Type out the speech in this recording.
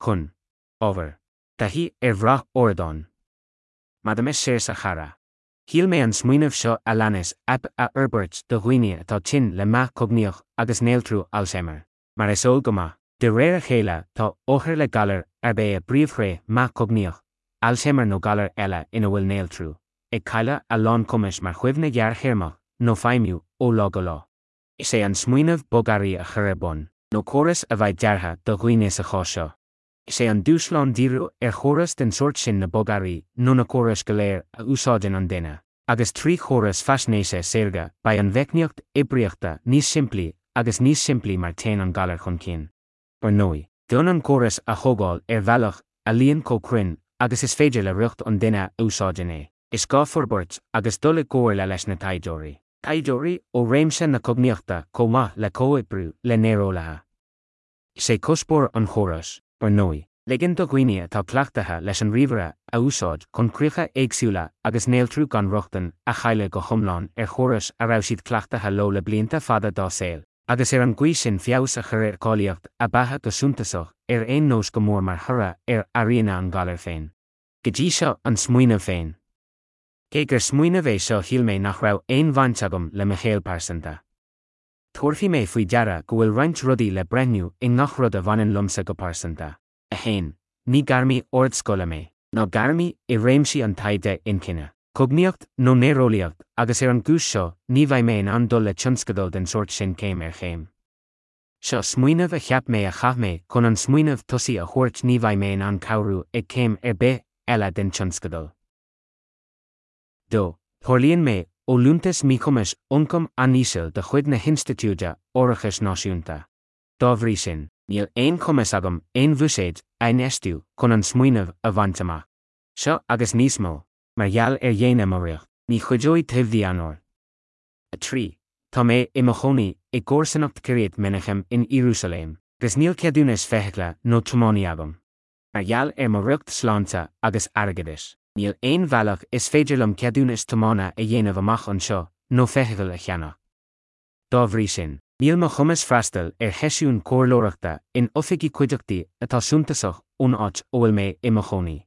Chun. Ábhar. Taithí ar bhrath ardáin. Maidir Seosamh a chara. Shíl mé an smaoineamh seo a leanas aip a fhorbairt do dhaoine atá tinn le meath cognaíoch agus néaltrú Alzheimer. Mar is eol go maith, de réir a chéile tá othair le galar arb é a bpríomhthréith meath cognaíoch, Alzheimer nó galar eile ina bhfuil néaltrú, ag cailleadh a lán cumais mar chuimhne ghearrthéarmach nó feidhmiú ó lá go lá. Is é an smaoineamh bogearraí a chur ar bun, nó córas a bheidh deartha do dhaoine sa chás seo. Is é an dúshlán díriú ar chóras den sórt sin na bogearraí nó na córais go léir a úsáideann an duine, agus trí chóras faisnéise saorga beidh an mheicníocht oibríochta níos simplí agus níos simplí mar téann an galar chun cinn. Ar ndóigh, d'fhonn an córas a thógáil ar bhealach a luíonn chomh cruinn agus is féidir le riocht an duine a úsáideann é, is gá forbairt agus dul i gcomhairle leis na taighdeoirí. Taighdeoirí ó réimse na cognaíochta chomh maith le comhoibriú le néareolaithe. Is é cuspóir an chórais, ar ndóigh, ligean do dhaoine atá cleachtaithe leis an ríomhaire a úsáid chun críocha éagsúla agus néaltrú gan rochtain a chailleadh go hiomlán ar chórais a raibh siad cleachtaithe leo le blianta fada dá saol, agus ar an gcaoi sin feabhas a chur ar cháilíocht a beatha go suntasach ar aon nós go mór mar thoradh ar airíonna an ghalair féin. Go dtí seo an smaoineamh féin. Cé gur smaoineamh é seo shíl mé nach raibh aon bhaint agam le mo shaol pearsanta. Tabharfaidh mé faoi deara go bhfuil roinnt rudaí le breithniú i ngach rud a bhaineann liomsa go pearsanta. 1. Ní gairmí ardscoile mé, ná gairmí i réimsí an taighde inchinne, cognaíocht nó néareolaíocht agus ar an gcúis seo ní bheidh mé in ann dul le tionscadal den sórt sin céim ar chéim. Seo smaoineamh a cheap mé a chaith mé chun an smaoineamh tosaigh a thabhairt ní bheidh mé in ann cabhrú ag céim ar bith eile den tionscadal. 2. Tarlaíonn mé ó Liúntas Míchumais Ioncam An-Íseal de chuid na hInstitiúide Árachais Náisiúnta. Dá bhrí sin, níl aon chumas agam aon bhuiséid a infheistiú chun an smaoineamh a bhaint amach. Seo agus níos mó, mar gheall ar dhéine mo riocht, ní chuideoidh toimhdí Eanáir. 3. Tá mé i mo chónaí i gcomharsanacht Kiryat Menachem in Iarúsailéim, agus níl ceadúnas feithicle nó tiománaí agam. Mar gheall ar mo riocht sláinte agus airgeadais, níl aon bhealach is féidir liom ceadúnas tiomána a dhéanamh amach anseo nó feithicil a cheannach. Dá bhrí sin, níl mo chumas freastal ar sheisiúin chomhairleoireachta in oifigí cuideachtaí atá suntasach ón áit a bhfuil mé i mo chónaí.